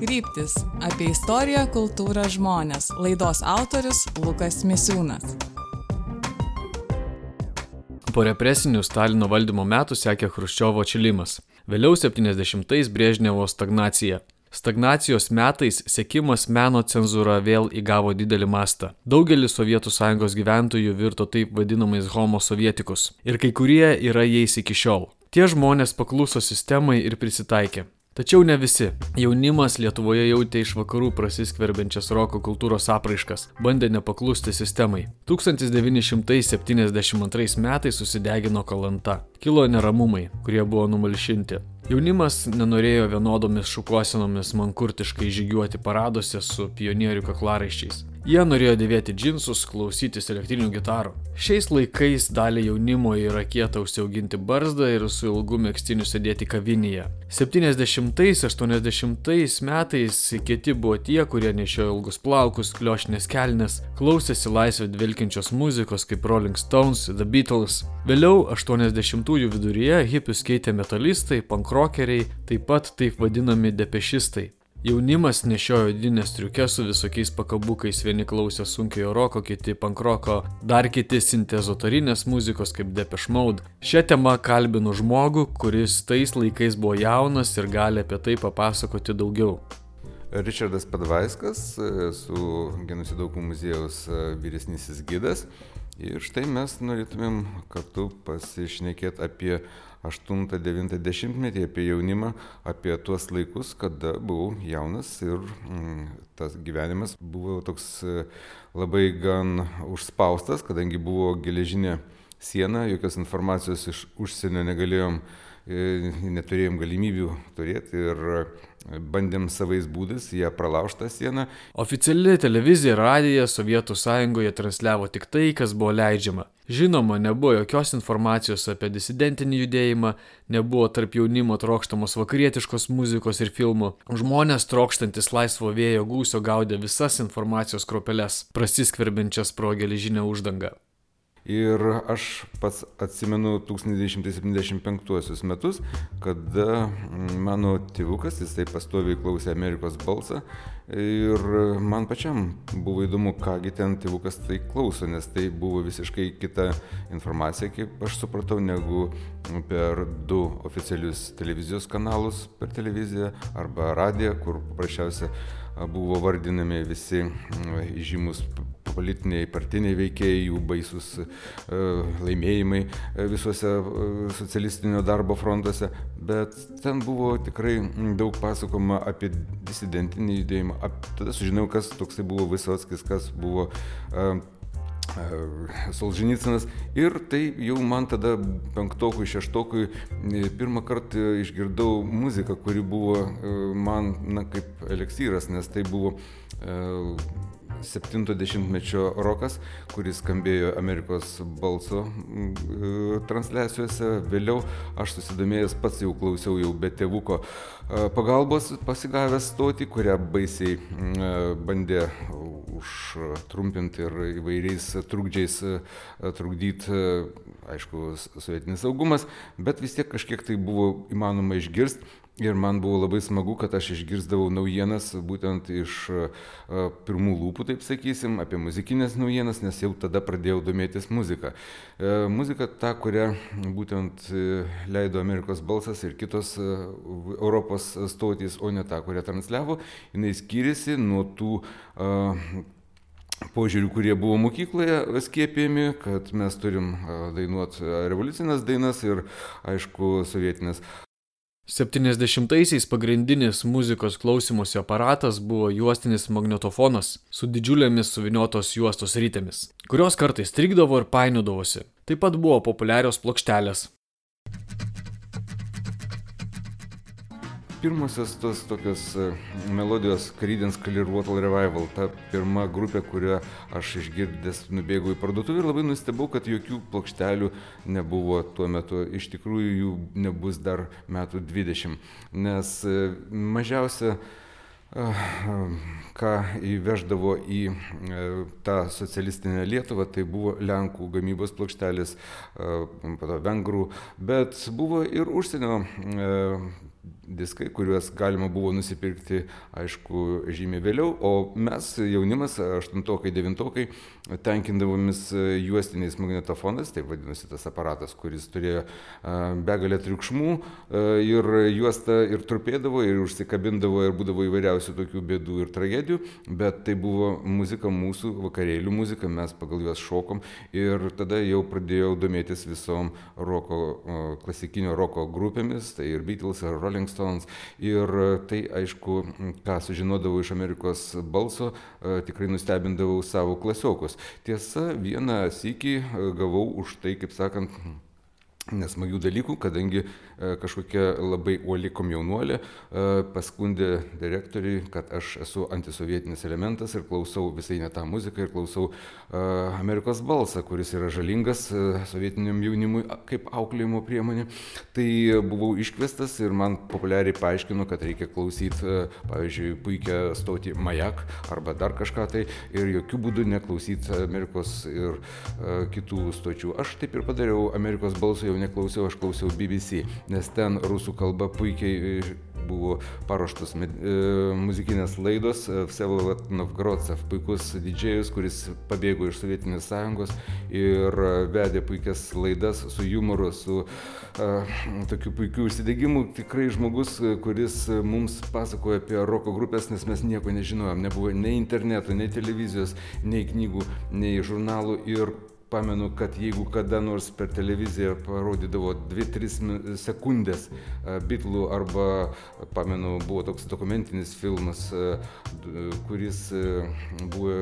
Kryptis – apie istoriją, kultūrą, žmones. Laidos autorius Lukas Misiūnas. Po represinių Stalino valdymo metų sekė Chruščiovo atšilimas. Vėliau 70-ais Brežnevo stagnacija. Stagnacijos metais sekimas meno cenzūra vėl įgavo didelį mastą. Daugelis Sovietų Sąjungos gyventojų virto taip vadinamais homo sovietikus. Ir kai kurie yra jais iki šiol. Tie žmonės pakluso sistemai ir prisitaikė. Tačiau ne visi. Jaunimas Lietuvoje jautė iš vakarų prasiskverbiančias roko kultūros apraiškas, bandė nepaklusti sistemai. 1972 metais susidegino Kalanta. Kilo neramumai, kurie buvo numalšinti. Jaunimas nenorėjo vienodomis šukuosenomis mankurtiškai žygiuoti paraduose su pionierių kaklaraiščiais. Jie norėjo dėvėti džinsus, klausytis elektrinių gitarų. Šiais laikais dalį jaunimo yra kieta užsiauginti barzdą ir su ilgu megztiniu sėdėti kavinėje. 70-80 metais kieti buvo tie, kurie nešiojo ilgus plaukus, kliošinės kelnes, klausėsi laisvę dvelkiančios muzikos kaip Rolling Stones, The Beatles. Vėliau 80-ųjų viduryje hipius keitė metalistai, pankrokeriai, taip pat taip vadinami depešistai. Jaunimas nešiojo odines striukes su visokiais pakabukais, vieni klausė sunkiojo roko, kiti pankroko, dar kiti sintezotorinės muzikos kaip Depeche Mode. Šią temą kalbinu žmogų, kuris tais laikais buvo jaunas ir gali apie tai papasakoti daugiau. Ričardas Padvaiskas, su Genocido aukų muziejaus vyresnysis gidas. Ir štai mes norėtumėm kartu pasišnekėti apie 8-9 apie jaunimą, apie tuos laikus, kada buvau jaunas ir tas gyvenimas buvo toks labai gan užspaustas, kadangi buvo geležinė siena, jokios informacijos iš užsienio negalėjom, neturėjom galimybių turėti ir bandėm savais būdais ją pralaužtą sieną. Oficiali televizija ir radija Sovietų Sąjungoje transliavo tik tai, kas buvo leidžiama. Žinoma, nebuvo jokios informacijos apie disidentinį judėjimą, nebuvo tarp jaunimo trokštamos vakarietiškos muzikos ir filmų. Žmonės trokštantis laisvo vėjo gūsio gaudė visas informacijos kropeles, prasiskverbiančias pro geležinę uždangą. Ir aš pats atsimenu 1975 metus, kada mano tėvukas, jisai pastoviai klausė Amerikos balsą ir man pačiam buvo įdomu, kągi ten tėvukas tai klauso, nes tai buvo visiškai kita informacija, kaip aš supratau, negu per du oficialius televizijos kanalus per televiziją arba radiją, kur paprasčiausia buvo vardinami visi žymus politiniai, partiniai veikėjai, jų baisus laimėjimai visuose socialistinio darbo frontuose, bet ten buvo tikrai daug pasakoma apie disidentinį judėjimą. Tada sužinau, kas toksai buvo Vysockis, kas buvo Solženicynas ir tai jau man tada penktokui, šeštokui pirmą kartą išgirdau muziką, kuri buvo man kaip eleksyras, nes tai buvo 70-mečio rokas, kuris skambėjo Amerikos balso transliacijose. Vėliau aš susidomėjęs pats jau klausiau jau be tėvuko pagalbos pasigavęs stotį, kurią baisiai bandė užtrumpinti ir įvairiais trukdžiais trukdyti, aišku, sovietinis saugumas, bet vis tiek kažkiek tai buvo įmanoma išgirsti. Ir man buvo labai smagu, kad aš išgirsdavau naujienas būtent iš pirmų lūpų, taip sakysim, apie muzikinės naujienas, nes jau tada pradėjau domėtis muziką. Muzika ta, kurią būtent leido Amerikos balsas ir kitos Europos stotys, o ne ta, kurią transliavo, jinai skyrėsi nuo tų požiūrių, kurie buvo mokykloje skiepijami, kad mes turim dainuoti revoliucinės dainas ir, aišku, sovietinės. 70-aisiais pagrindinis muzikos klausymosi aparatas buvo juostinis magnetofonas su didžiulėmis suvyniotos juostos ritėmis, kurios kartais strigdavo ir painiodavosi. Taip pat buvo populiarios plokštelės. Pirmosios tos tokios melodijos Creedence Clearwater Revival, ta pirma grupė, kurią aš išgirdęs nubėgau į parduotuvę ir labai nustebau, kad jokių plokštelių nebuvo tuo metu. Iš tikrųjų jų nebus dar metų 20, nes mažiausia ką įveždavo į tą socialistinę Lietuvą, tai buvo Lenkų gamybos plokštelės, vengrų, bet buvo ir užsienio diskai, kuriuos galima buvo nusipirkti, aišku, žymiai vėliau, o mes, jaunimas, 8-okai, 9-okai, tenkindavomis juostiniais magnetofonais, taip vadinosi tas aparatas, kuris turėjo begalę triukšmų ir juosta ir trupėdavo, ir užsikabindavo, ir būdavo įvairiausių tokių bėdų ir tragedijų, bet tai buvo muzika mūsų, vakarėlių muzika, mes pagal juos šokom ir tada jau pradėjau domėtis visom klasikinio roko grupėmis, tai ir Beatles, ir Rolling Stones, ir tai, aišku, ką sužinodavau iš Amerikos balso, tikrai nustebindavau savo klasiokus. Tiesa, vieną sykį gavau už tai, kaip sakant, nesmagių dalykų, kadangi kažkokia labai uoli komjaunuolė paskundė direktoriui, kad aš esu antisovietinis elementas ir klausau visai ne tą muziką ir klausau Amerikos balsą, kuris yra žalingas sovietiniam jaunimui kaip auklėjimo priemonė. Tai buvau iškviestas ir man populiariai paaiškino, kad reikia klausyti, pavyzdžiui, puikią stotį Majak arba dar kažką tai ir jokių būdų neklausyti Amerikos ir kitų stočių. Aš taip ir padariau, Amerikos balso jau neklausiau, aš klausiau BBC, nes ten rusų kalba puikiai buvo paruoštos muzikinės laidos. Vsevolod Novgorodcev, puikus didžėjus, kuris pabėgo iš Sovietinės sąjungos ir vedė puikias laidas su jumoru, su tokiu puikiu užsidegimu. Tikrai žmogus, kuris mums pasakoja apie roko grupės, nes mes nieko nežinojom, nebuvo nei interneto, nei televizijos, nei knygų, nei žurnalų. Ir pamenu, kad jeigu kada nors per televiziją parodydavo 2-3 sekundės Beatlų arba, pamenu, buvo toks dokumentinis filmas, kuris buvo,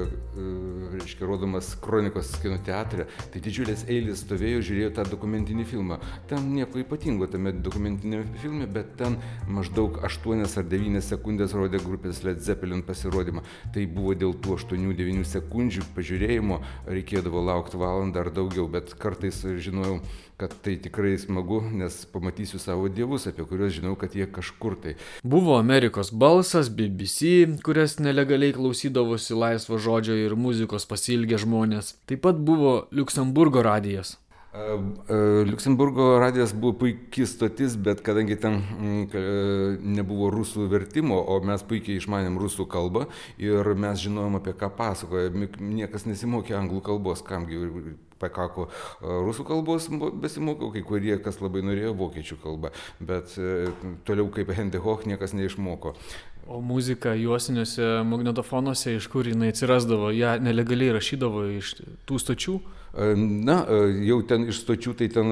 reiškia, rodomas Kronikos kino teatre, tai didžiulės eilės stovėjo, žiūrėjo tą dokumentinį filmą. Ten nieko ypatingo tame dokumentinėme filme, bet ten maždaug 8 ar 9 sekundės rodė grupės Led Zeppelin pasirodymą. Tai buvo dėl tų 8-9 sekundžių pažiūrėjimo, reikėdavo laukti valandą ar daugiau, bet kartais žinojau, kad tai tikrai smagu, nes pamatysiu savo dievus, apie kuriuos žinau, kad jie kažkur tai. Buvo Amerikos balsas, BBC, kurias nelegaliai klausydavosi laisvo žodžio ir muzikos pasiilgę žmonės. Taip pat buvo Liuksemburgo radijas. Liuksemburgo radijas buvo puikiai stotis, bet kadangi ten nebuvo rusų vertimo, o mes puikiai išmanėm rusų kalbą ir mes žinojom, apie ką pasakoja, niekas nesimokė anglų kalbos, kamgi pakako rusų kalbos besimokiau, kai kurie, kas labai norėjo, vokiečių kalbą, bet toliau kaip Hendy Hoch niekas neišmoko. O muzika juostiniuose magnetofonuose, iš kur jinai atsirasdavo, ją nelegaliai rašydavo iš tų stočių? Na, jau ten iš stočių, tai ten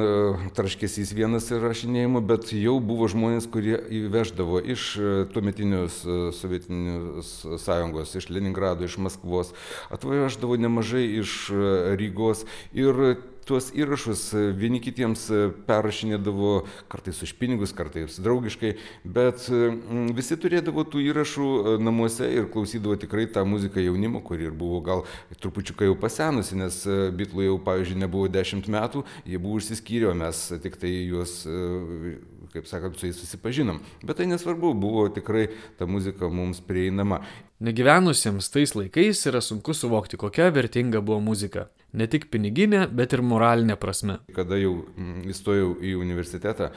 traškesys vienas įrašinėjimo, bet jau buvo žmonės, kurie įveždavo iš tuometinios Sovietinės sąjungos, iš Leningrado, iš Maskvos, atvažiavo nemažai iš Rygos ir tuos įrašus vieni kitiems perrašinėdavo kartais už pinigus, kartais draugiškai, bet visi turėdavo tų įrašų namuose ir klausydavo tikrai tą muziką jaunimo, kuri ir buvo gal trupučiuką jau pasenusi, nes Beatlų jau, pavyzdžiui, nebuvo 10 metų, jie buvo išsiskyrę, mes tik tai juos, kaip sakant, su jais susipažinom. Bet tai nesvarbu, buvo tikrai ta muzika mums prieinama. Negyvenusiems tais laikais yra sunku suvokti, kokia vertinga buvo muzika. Ne tik piniginė, bet ir moralinė prasme. Kada jau įstojau į universitetą,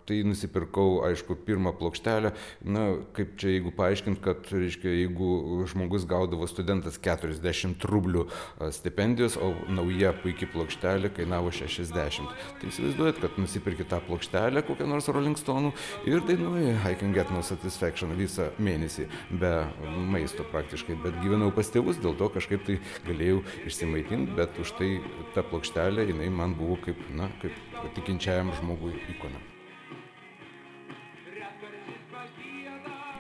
tai nusipirkau, aišku, pirmą plokštelę. Na, kaip čia, jeigu paaiškint, kad, reiškia, jeigu žmogus gaudavo studentas 40 rublių stipendijos, o nauja puikiai plokštelė kainavo 60. Tai įsivaizduojat, kad nusipirki tą plokštelę, kokią nors Rolling Stone'ų ir dainuoji I Can Get No Satisfaction visą mėnesį, be maisto praktiškai. Bet gyvenau pas tėvus, dėl to kažkaip tai galėjau išsimaitinti, bet už tai ta plokštelė, jinai man buvo kaip, na, kaip tikinčiajam žmogui ikona.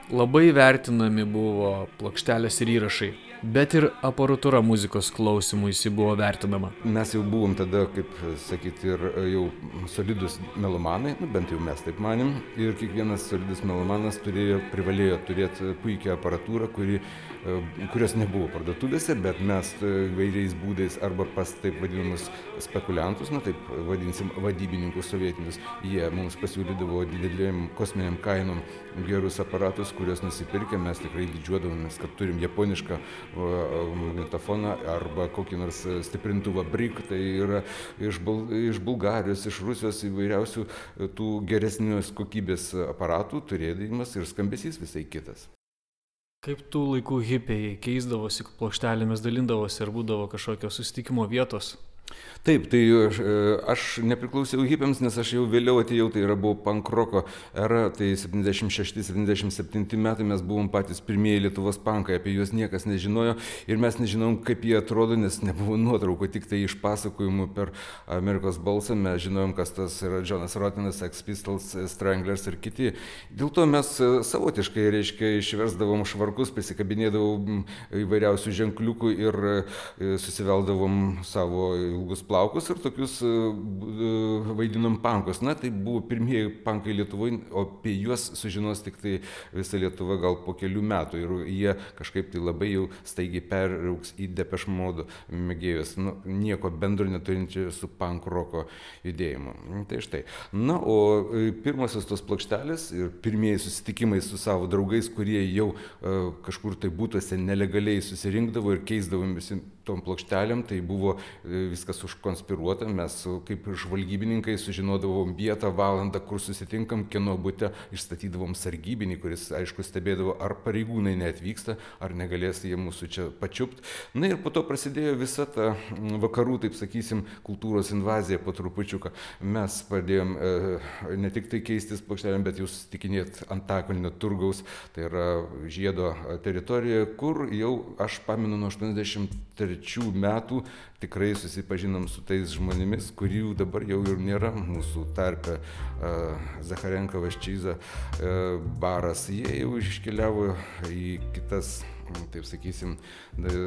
Labai vertinami buvo plokštelės ir įrašai, bet ir aparatūra muzikos klausimui buvo vertinama. Mes jau buvom tada, kaip sakyti, ir jau solidus melomanai, bent jau mes taip manėm, ir kiekvienas solidus melomanas privalėjo turėti puikią aparatūrą, kurios nebuvo parduotuvėse, bet mes vairiais būdais arba pas taip vadinamus spekuliantus, na taip vadinsim vadybininkus sovietinius, jie mums pasiūlydavo didelėm kosminiam kainom gerus aparatus, kuriuos nusipirkę, mes tikrai didžiuodavomės, kad turim japonišką magnetofoną arba kokį nors stiprintuvą BRIC, tai yra iš Bulgarijos, iš Rusijos įvairiausių tų geresnės kokybės aparatų turėdamas ir skambesys visai kitas. Kaip tų laikų hipiai keisdavosi plokštelėmis, dalindavosi ir būdavo kažkokios susitikimo vietos? Taip, tai aš nepriklausiau hipiams, nes aš jau vėliau atėjau, tai buvo pankroko era, tai 76-77 metai mes buvom patys pirmieji Lietuvos pankai, apie juos niekas nežinojo ir mes nežinom, kaip jie atrodo, nes nebuvo nuotraukų, tik tai iš pasakojimų per Amerikos balsą mes žinojom, kas tas yra Jonas Rotinas, Sex Pistols, Stranglers ir kiti. Dėl to mes savotiškai, reiškia, išversdavom švarkus, prisikabinėdavom įvairiausių ženkliukų ir susiveldavom savo ilgus plaukus ir tokius vaidinom pankus. Na, tai buvo pirmieji pankai Lietuvoje, o apie juos sužinos tik tai visa Lietuva gal po kelių metų ir jie kažkaip tai labai jau staigiai peraugs į Depeche Mode mėgėjus, nieko bendro neturinčių su punk roko judėjimu. Tai štai. Na, o pirmosios tos plokštelės ir pirmieji susitikimai su savo draugais, kurie jau kažkur tai būtuose nelegaliai susirinkdavo ir keisdavom visi tom plokštelėm, tai buvo viskas užkonspiruota, mes kaip žvalgybininkai sužinodavom vietą, valandą, kur susitinkam, kieno bute, išstatydavom sargybinį, kuris, aišku, stebėdavo, ar pareigūnai neatvyksta, ar negalės jie mūsų čia pačiupt. Na ir po to prasidėjo visa ta vakarų, taip sakysim, kultūros invazija po trupučiuką. Mes pradėjom ne tik tai keistis plokštelėm, bet jau susitikinėti Antakalnio turgaus, tai yra Žiedo teritorijoje, kur jau, aš pamenu, nuo 83 metų tikrai susipažinom su tais žmonėmis, kurių dabar jau ir nėra mūsų tarpe. Zacharenka, Vaščyza, Baras, jie jau iškeliavo į kitas, taip sakysim,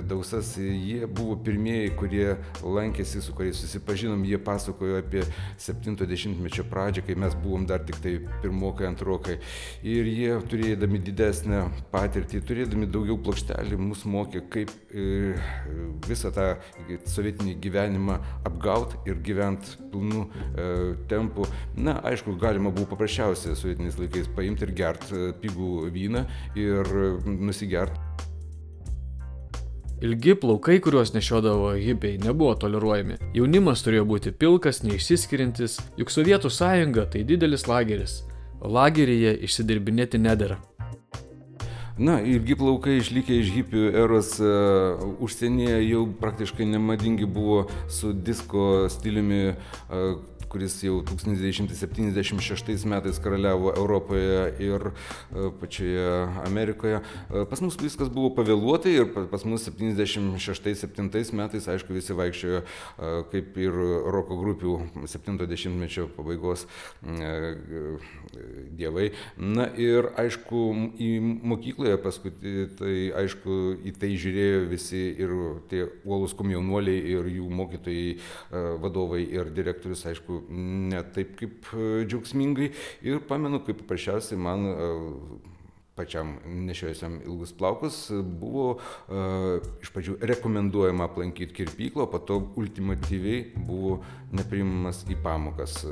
dausas. Jie buvo pirmieji, kurie lankėsi, su kuriais susipažinom, jie pasakojo apie 70-mečio pradžią, kai mes buvom dar tik tai pirmokai, antrokai. Ir jie, turėdami didesnę patirtį, turėdami daugiau plokštelių, mus mokė, kaip visą tą sovietinį gyvenimą apgaut ir gyvent pilnu tempu. Na, aišku, galima buvo paprasčiausiai sovietiniais laikais paimti ir gert pigų vyną ir nusigert. Ilgi plaukai, kuriuos nešiodavo hipiai, nebuvo toleruojami. Jaunimas turėjo būti pilkas, neišsiskiriantis, juk Sovietų sąjunga tai didelis lageris, o lageryje išsidirbinėti nedera. Na, ilgi plaukai išlikę iš hipių eros užsienyje jau praktiškai nemadingi buvo su disko stiliumi, kuris jau 1976 metais karaliavo Europoje ir pačioje Amerikoje. Pas mus viskas buvo pavėluotai ir pas mus 76-77 metais, aišku, visi vaikščiojo kaip ir roko grupių 70-mečio pabaigos dievai. Na ir, aišku, į mokykloje paskui, tai aišku, į tai žiūrėjo visi ir tie uolūs komjaunuoliai ir jų mokytojai, vadovai ir direktorius, aišku, ne taip kaip džiaugsmingai. Ir pamenu, kaip paprasčiausiai man pačiam nešiojusiam ilgus plaukus buvo iš pradžių rekomenduojama aplankyti kirpyklą, po to ultimatyviai buvo nepriimamas į pamokas.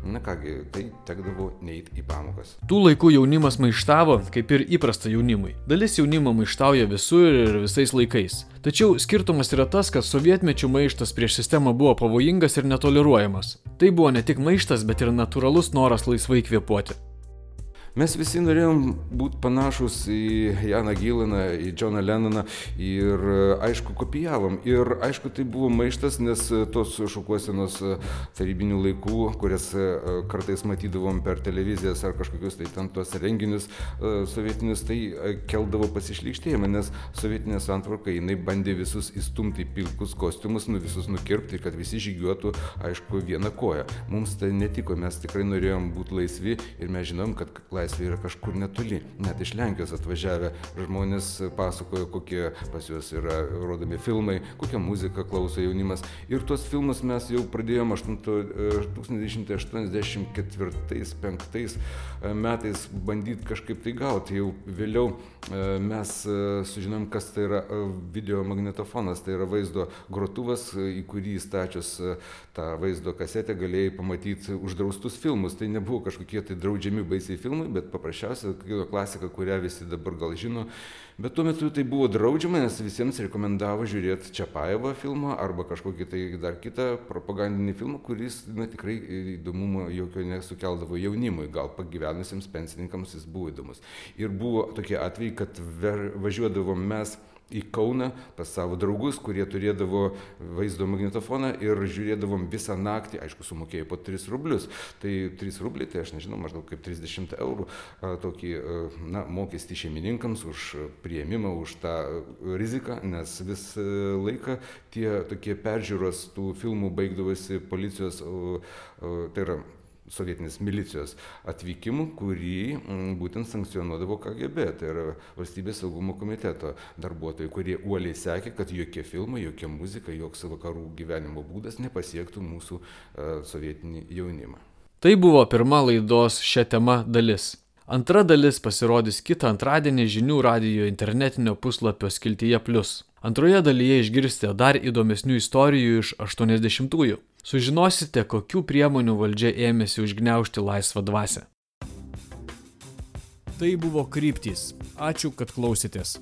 Na kągi, tai tekdavo neiti į pamokas. Tų laikų jaunimas maištavo, kaip ir įprasta jaunimui. Dalis jaunimo maištauja visur ir visais laikais. Tačiau skirtumas yra tas, kad sovietmečių maištas prieš sistemą buvo pavojingas ir netoleruojamas. Tai buvo ne tik maištas, bet ir natūralus noras laisvai kvėpuoti. Mes visi norėjom būti panašus į Janą Gilaną, į Džoną Lennoną ir, aišku, kopijavom. Ir, aišku, tai buvo maištas, nes tos šukuosenos tarybinių laikų, kurias kartais matydavom per televizijas ar kažkokius tai ten tuos renginius sovietinius, tai keldavo pasišlykštėjimą, nes sovietinė santvarka, jinai bandė visus įstumti į pilkus kostiumus, visus nukirpti, kad visi žygiuotų, aišku, vieną koją. Mums tai netiko, mes tikrai norėjom būti laisvi ir mes žinom, kad laisvė yra kažkur netoli. Net iš Lenkijos atvažiavę žmonės pasakojo, kokie pas juos yra rodomi filmai, kokią muziką klauso jaunimas. Ir tuos filmus mes jau pradėjom 1984-1985 metais bandyti kažkaip tai gauti. Jau vėliau mes sužinom, kas tai yra videomagnetofonas. Tai yra vaizdo grotuvas, į kurį įstačius tą vaizdo kasetę galėjai pamatyti uždraustus filmus. Tai nebuvo kažkokie tai draudžiami baisiai filmai, bet paprasčiausia kino klasika, kurią visi dabar gal žino. Bet tuo metu tai buvo draudžiama, nes visiems rekomendavo žiūrėti Čiapajevo filmą arba kažkokį tai dar kitą propagandinį filmą, kuris tikrai įdomumo jokio nesukeldavo jaunimui, gal pagyvenusiems pensininkams jis buvo įdomus. Ir buvo tokie atvejai, kad važiuodavom mes į Kauną pas savo draugus, kurie turėdavo vaizdo magnetofoną ir žiūrėdavom visą naktį, aišku, sumokėjo po 3 rublius. Tai 3 rubliai, tai aš nežinau, maždaug kaip 30 eurų tokį mokestį šeimininkams už priėmimą, už tą riziką, nes visą laiką tie tokie peržiūros tų filmų baigdavosi policijos, tai yra sovietinės milicijos atvykimu, kurį būtent sankcionuodavo KGB, tai yra Valstybės saugumo komiteto darbuotojai, kurie uoliai sekė, kad jokie filmai, jokia muzika, joks vakarų gyvenimo būdas nepasiektų mūsų sovietinį jaunimą. Tai buvo pirma laidos šią temą dalis. Antra dalis pasirodys kitą antradienį žinių radijo internetinio puslapio skiltyje Plius. Antroje dalyje išgirsite dar įdomesnių istorijų iš 80-ųjų. Sužinosite, kokių priemonių valdžia ėmėsi užgniaužti laisvą dvasią. Tai buvo Kryptys. Ačiū, kad klausėtės.